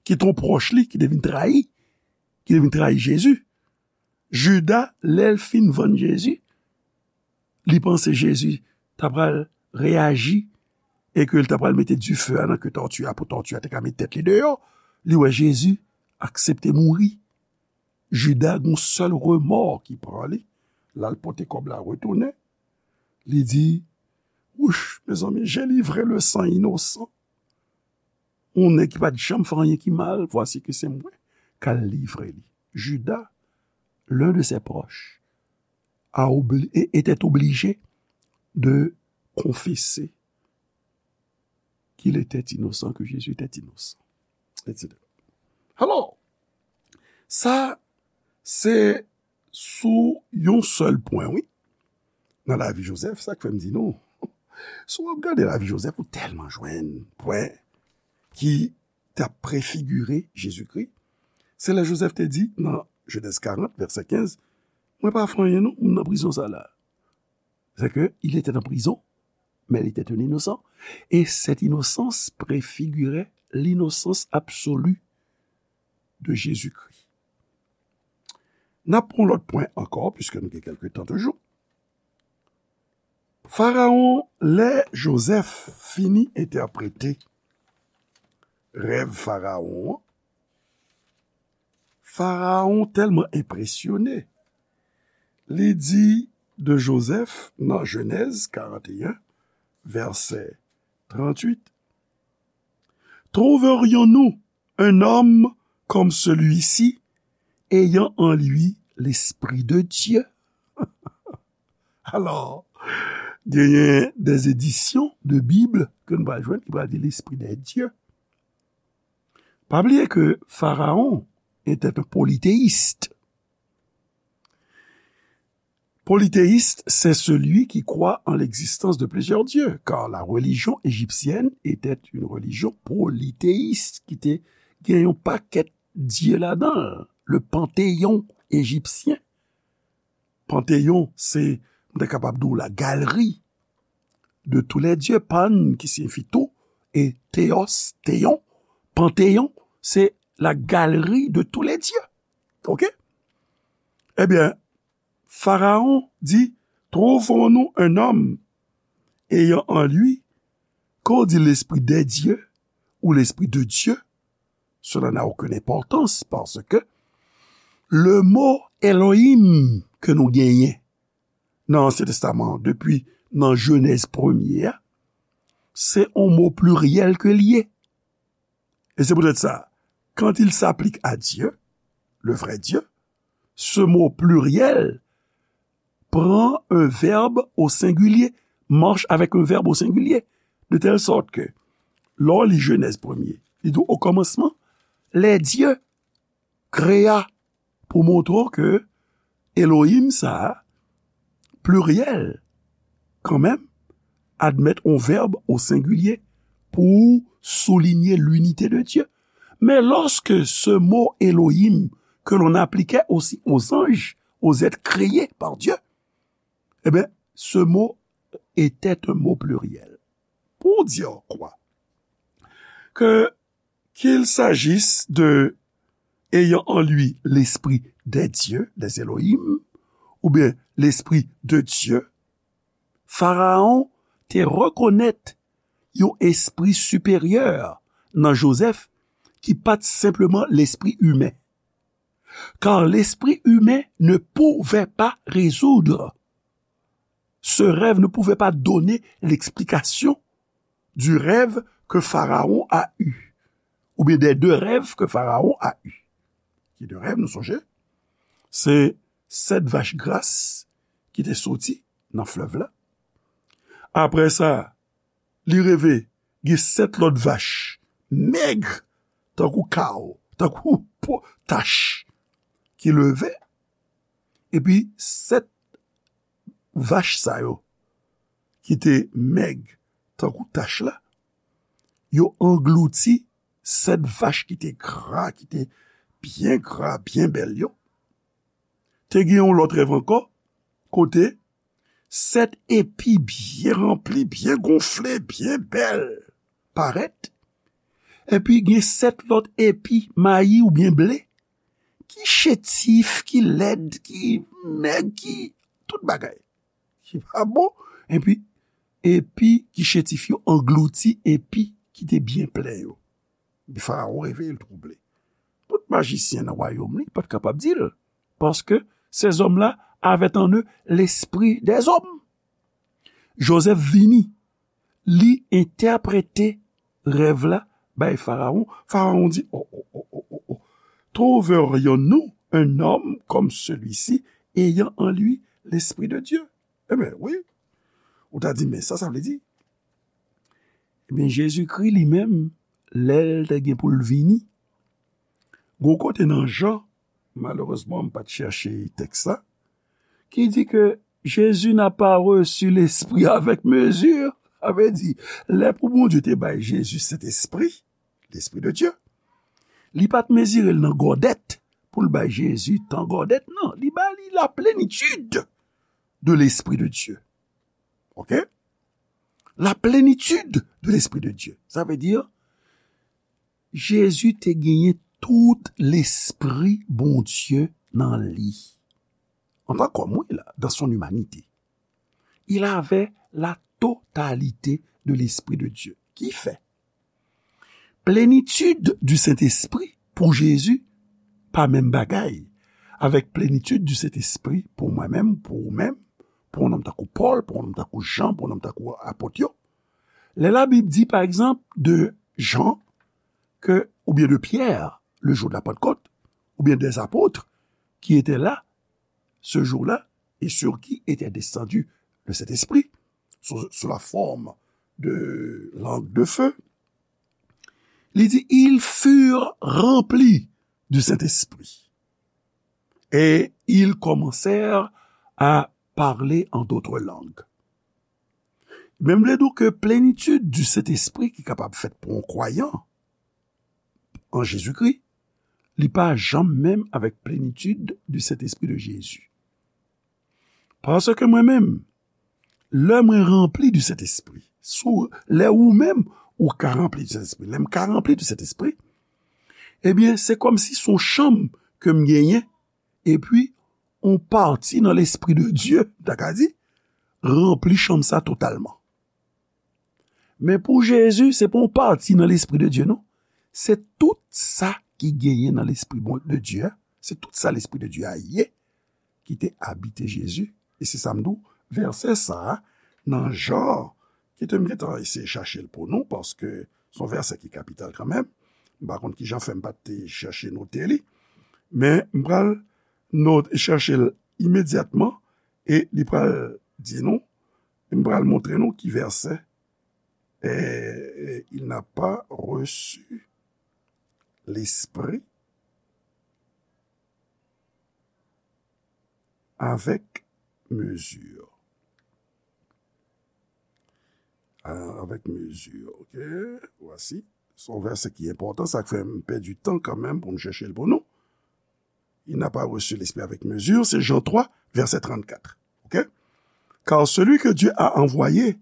ki t yon pwòch li, ki te vin trayi, ki te vin trayi Jezi, Jida, lè l fin vann Jezi, li panse Jezi ta pral reyaji e ke l ta pral mete dife a nan ke tòti a pou tòti a te ka met tèt li deyò. Li wè Jezi aksepte mouri. Jida gen yon sèl remò ki pran li. L al pote kòb la retounen. Li di, wouch, mezanmi, j'ai livré le sang innocent. Yon nèg ki pa t janm fè anyen ki mal, voici que c'est moi k al livre li. Jida, l'un de ses proches, a obli- e- était obligé de confesser qu'il était innocent, que Jésus était innocent, et cetera. Alò, sa, se sou yon sèl pwen, wi. Nan lavi Jozèf, sa k fè m di nou, si w ap gade lavi Jozèf, ou tèlman jwenn pwen ki t ap prefigire Jezikri. Se lè Jozèf te di nan Jenèz karant, vèsè kenz, mwen pa fè anyen non, m nan prizon sa la. C'est que il était en prison, mais il était un innocent. Et cette innocence préfigurait l'innocence absolue de Jésus-Christ. N ap pran lòt pwen ankò, piske nou gen kèlke tan toujou. Farawon, lè Jozèf fini entèprete rèv Farawon an, Farawon tèlman enpresyone, li di de Jozèf nan Jenèz karant e en, vèsè tranntuit, trouverions-nous un homme comme celui-ci, ayant en lui l'Esprit de Dieu? Alò, genyen des éditions de Bible ke nou pral jwenn ki pral di l'Esprit de Dieu. Pa bliye ke Farawon était un polythéiste. Polythéiste, c'est celui qui croit en l'existence de plusieurs dieux, car la religion égyptienne était une religion polythéiste, ki te gen yon pakèt dye ladan l. Le panthéon égyptien. Panthéon, se, m ta kapab di w, la galerie de tous les dieux. Pan, ki siyifi tout, e théos, théon. Panthéon, c'est la galerie de tous les dieux. Ok? Ebyen, Farawon di, trouvons-nous un homme ayant en lui, quand on dit l'Esprit des dieux ou l'Esprit de Dieu, cela n'a aucune importance parce que le mot Elohim ke nou genyen nan Ansyen Testaman an, depi nan Jenèz premye a, se yon mo pliryèl ke l ye. Et c'est peut-être ça. Quand il s'applique à Dieu, le vrai Dieu, ce mot pluriel prend un verbe au singulier, marche avec un verbe au singulier, de telle sorte que, lè w li Jenèz premye, li di w, au commencement, les dieux créa, pou montre w ke Elohim sa a, pliryèl, kanmenm, admèt yon vèb o sengilye pou soulinye linite de Dye. Men lòske se mo Elohim ke l'on appliquait aussi aux anges, aux êtres créés par Dieu, eh bien, ce mot était un mot pluriel. Pour dire quoi? Que qu'il s'agisse de ayant en lui l'esprit des dieux, des Elohim, oubyen l'esprit de Dye, Farawon te rekonèt yon espri siperyè nan Jozèf ki pa t senpleman lespri imen. Car l'esprit humain ne pouvait pas résoudre. Ce rêve ne pouvait pas donner l'explication du rêve que Pharaon a eu, ou bien des deux rêves que Pharaon a eu. Ki de rèv, nou sonje? Se sèt vach gras ki te soti nan flèv la. Apre sa, li reve gen sèt lòt vach mèg, tankou kaw, tankou po, tach, ki leve. Epi sèt vach sa yo, ki te mèg tankou tach la, yo anglouti sèt vach ki te gra, ki te byen gra, byen bèl yo. Te gen yon lòt rèv ankò, kote sèt epi byen ranpli, byen gonfle, byen bèl parèt. Epi gen sèt lòt epi mayi oubyen ble ki chétif, ki lèd, ki mèg, ki tout bagay ki pa bon. Epi, epi ki chétif yo anglouti epi ki te byen plen yo. Epi Farawon reveye, l twouble. Tout majisyen nan wayòm li pa t kapab di l, paske ces hommes-là avaient en eux l'esprit des hommes. Jozèf vini, li entèprete rèv la bay Farawon. Farawon di, oh, oh, oh, oh, oh, oh. Trouverions-nous un homme comme celui-ci, ayant en lui l'Esprit de Dieu? Ebyen, wi. Ou ta di, men sa, sa vle di? Ebyen, Jezikri li menm, lè l te gen pou l vini, gon kote nan Jan, malerezman, m pa t chèche tèks la, ki di ke Jésus n'a pas reçu l'Esprit avec mesure. Sa vle di, lè pou Bondye te bay Jezi Sentespri, l'Esprit de Dieu, li pa t mezire l nan gòdèt pou l bay Jezi tan gòdèt, non. Li ba li la plenitude de l'Esprit de Dieu. Ok? La plénitude de l'Esprit de Dieu. Sa vle di, Jezi te genyen tout Lespri Bondye nan li. Antan kòm, wi, la, dans son humanité. Il avait la totalité de l'Esprit de Dieu. Ki fè, plénitude du Saint-Esprit pou Jezi pa menm bagay avèk plénitude du Saint-Esprit pou mwen menm, pou ou menm, pou yon nonm tankou Pòl, pou yon nonm tankou Jan, pou yon nonm tankou apot yo. Lè Labib di, pa egzanp, de Jan, ke, oubyen de Pierre, le jour de la Pentecôte, oubyen des apôtres qui étaient là ce jour-là et sur qui était descendu le Saint-Esprit, sous, sous la forme de langue de feu, li di, ils furent remplis du Saint-Esprit et ils commencèrent à parler en d'autres langues. Men m vle di w ke plénitude du Saint-Esprit ki kapab fèt pou yon kwayan an Jezikri, li pa janm menm avèk plénitude du Saint-Esprit de Jésus. Paske mwen menm, lè mwen ranpli du Saint-Esprit, sou, lè ou menm ou ka ranpli du Saint-Esprit, lè m ka ranpli du Saint-Esprit, ebyen, se kòmsi se yon chanm ke m genyen, epi yon pati nan Lespri de Dye, m ta ka di, ranpli chanm sa totalman. Men pou Jezi, se pa yon pati nan Lespri de Dye, non. Se tout sa ki genyen nan Lespri bon, de Dye a. Se tout sa Lespri de Dye a ye, ki te abite Jezi. E se sa m di w, vèsè sa a, nan Jan, kite m gentan eseye chache l pou nou, paske se yon vèsè ki kapital kanmenm. M pa konn ki jan fè m pa t te chèche note li. Men m pral not-, chèche l imedyatman e li pral di nou, m pral montre nou ki vèsè, eh, il n'a pas reçu l'Esprit avec mesure. Ah, avec mesure, ok? Voici. Se yon vèsè ki enpòtan, sa k fè m pèdi tan kanmenm pou m chèche l pou nou. Il n'a pas reçu l'Esprit avec mesure, c'est Jean trois, verset trente-quatre. Ok? Car celui que Dieu a envoyé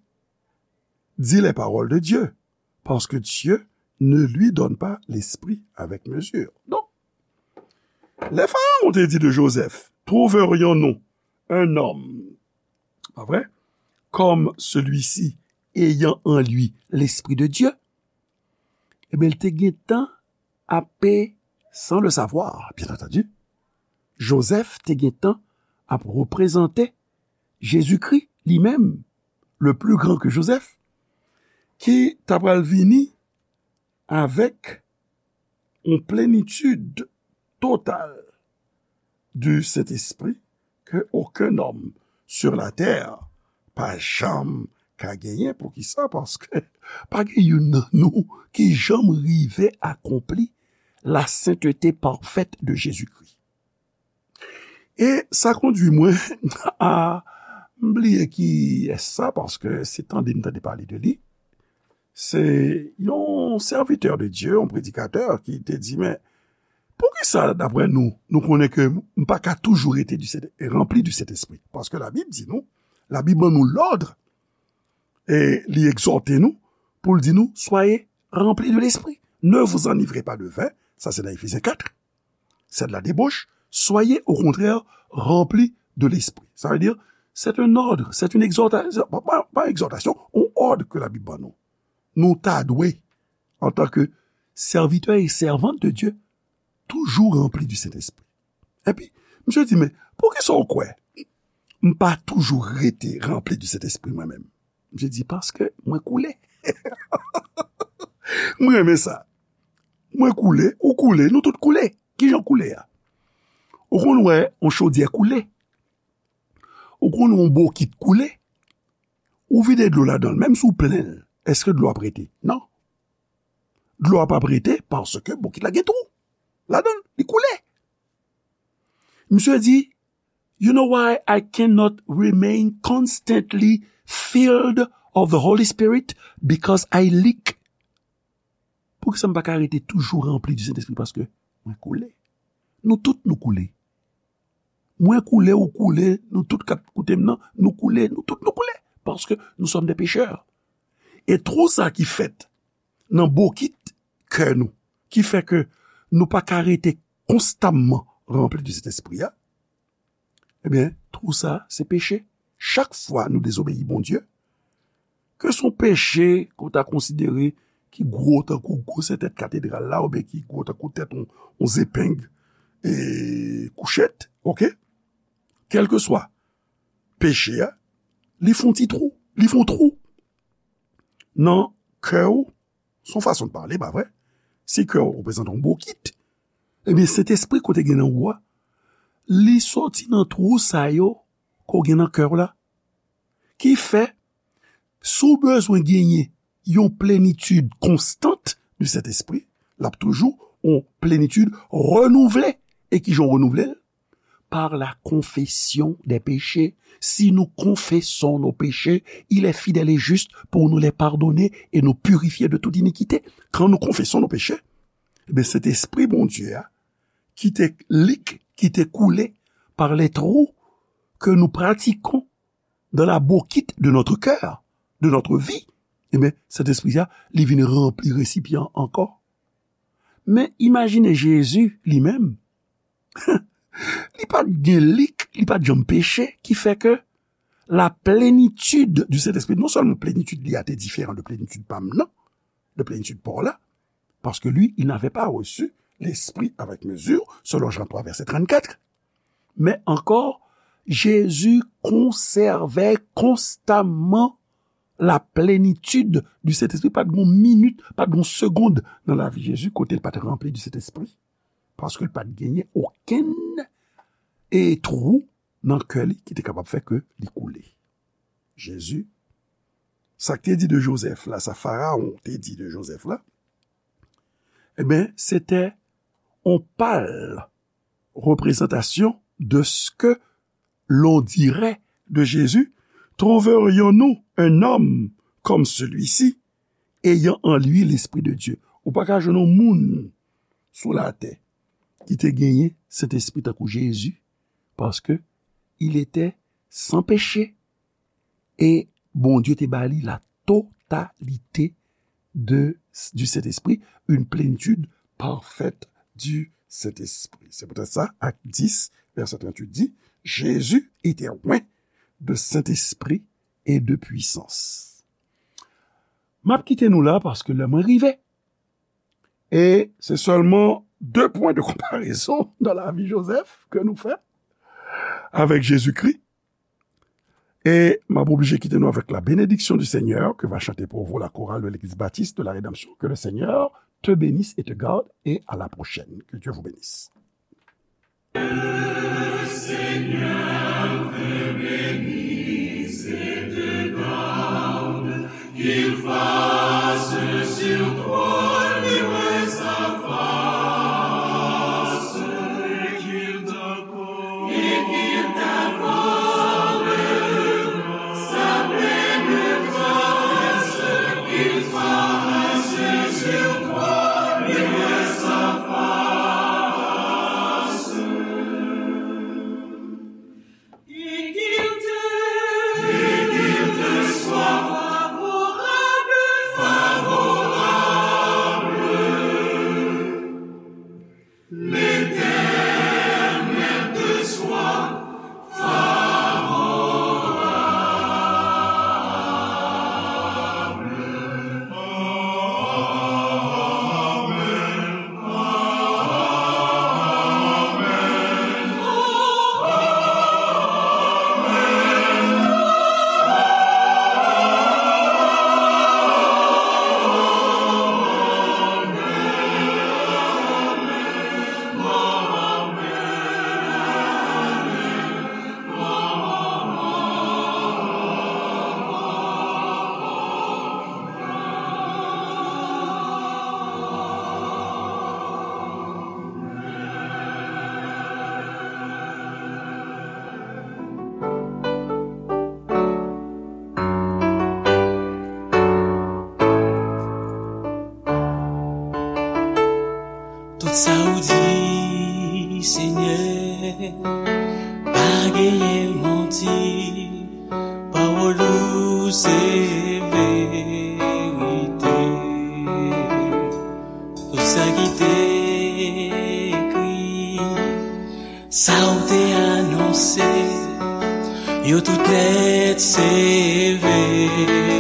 dit les paroles de Dieu, parce que Dieu ne lui donne pas l'Esprit avec mesure. Donc, lè Pharaon te di de Joseph, trouverions-nous un homme, pas vrai, comme celui-ci, ayant en lui l'Esprit de Dieu, ebyen, l te gentan ape, sans le savoir, bien entendu, Joseph te gentan ap reprezante Jezikri li menm, le plus grand que Joseph, ki ta pral vini avèk yon plenitid total du Saint-Esprit que aucun homme sur la terre pa janm ka genyen. Poukisa? Paske pa gen youn nan nou ki janm rive akonpli la sainteté parfaite de Jésus-Christ. E sa kondui mwen a, m bliye kiyès sa, paske se tande m tande pale de li. Se yon sèvitè de Dye, yon predikatè ki te di, men, poukisa, daprè nou, nou konnen ke m pa ka toujou rete du Saint-, ranpli du Saint-Esprit? Paske Labib di nou, Labib ban nou lòd, e li egzòte nou, pou l di nou, soyez remplis de l'Esprit. Ne vous enivrez pas de vin, sa se nan Efezyen kat, c'est de la débauche, soyez au contraire remplis de l'Esprit. Ça veut dire, c'est un ordre, c'est une exhortation, pa, pa, pa egzòtasyon, yon òd ke Labib ban nou. Nou ta dwe, antanke sèvitè e sèvant de Dye, toujou ranpli du Saint-Esprit. Epi, misye di, men, poukisa w kwè m pa toujou rete ranpli du Saint-Esprit mwen menm? Misye di, paske mwen koule. M renmen sa. Mwen koule, ou koule, nou tout koule. Kijan koule a? Ou konn wè yon chodyè koule? Ou konn wè yon bokit koule? Ou vide dlo ladan l, menm si w plen l, èske dlo ap rete? Non. Dlo a p ap rete paske bokit la gen twou ladan l, li koule. Misye di, you know why I cannot remain constantly filled of the Holy Spirit? Because I leak. Poukisa m pa ka rete toujou ranpli du Saint-Esprit? Paske mwen koule. Nou tout nou koule. Mwen koule, ou koule, nou tout k ap koute m nan, nou koule, nou tout nou koule. Paske nous sommes des pécheurs. E twou sa ki fèt nan bokit kè nou, ki fè ke nou pa ka rete konstamman ranpli de Sentespri a, ebyen, twou sa, se peche. Chak fwa nou dezobeyi Bondye, ke se yon peche ke w ta konsidere ki gwo tankou gwosè tèt katedral la, oubyen ki gwo tankou tèt yon, yon zepeng, e, kouchèt, oke? Kèlkeswa peche a, li fè yon ti twou, li fè yon twou nan kè w, se yon fason de pale, pa vre? Si kè w reprezante yon bokit, ebyen, Sentespri kote gen nan ou a, li soti nan twou sa yo ke w gen nan kè w la. Ki fè, si w bezwen genyen yon plenitid konstant de Sentespri, l ap toujou yon plenitid renouvle. E ki jan w renouvle l? Par la confession des péchés. Si nous confessons nos péchés, il est fidèle et juste pour nous les pardonner et nous purifier de toute iniquité. Quand nous confessons nos péchés, ebyen, Sentespri Bondye a, ki te lik, ki te koule par les trous que nous pratiquons dans la bokit de notre cœur, de notre vie, ebyen, Sentespri a, li vin ranpli resipyan an ankò. Men imajine Jezi li menm, li pa t gen lik, li pa t janm peche, ki fè ke la plénitude du Saint-Esprit, non sèlman plenitid li a te diferan de plenitid pa m nan, de plenitid pa w la, parce que lui, il n'avait pas reçu l'Esprit avec mesure, selon Jean trois, verset trente-quatre. Men ankò, Jezi konsève konstamman la plenitid du Saint-Esprit. Pa t gen yon minit, pa t gen yon segonn nan lavi Jezi kote l pa t ranpli du Saint-Esprit. Paske l pa t genyen okenn, e, twou nan kè li ki te kapab fè ke li koule. Jezi, sa k te di de Jozèf la, sa Farawon te di de Jozèf la, ebyen, se te yon pal représentation de ce que l'on dirait de Jésus, trouverions-nous un homme comme celui-ci, ayant en lui l'Esprit de Dieu? Ou pa ka jwenn yon moun sou latè ki te genyen Sentespri tankou Jezi, paske il était sans péché. E Bondye te ba li la totalité de, du Saint-Esprit, une plénitude parfaite du Saint-Esprit. C'est peut-être ça, Acte dix, verset trente-huit dit, Jésus était oint de Saint-Esprit et de puissance. M ap kite nou la paske lè mwen rive. E se sèlman de pwen de konparezon nan lavi Jozèf ke nou fè avèk Jezikri. E m ap oblije kite nou avèk la bénédiction du Seigneur que va chanter pour vous la chorale de l'Église Baptiste de la Rédemption. Que le Seigneur te bénisse et te garde et à la prochaine. Que Dieu vous bénisse. Le Seigneur te bénisse et te garde, qu'il fasse sur toi luire sa face, et qu'il t'accorde, et qu'il t'accorde sa pleine grâce, qu'il fasse sur toi luire sa face. Et qu'il te, et qu'il te soit favorable, favorable. L'Éternel te soit favorable. Tout sa ou di, Senyè, pa genyen manti. Pawòl ou se verite. Tout sa ki te ekri, sa ou te anonse, yo tout nèt se verite.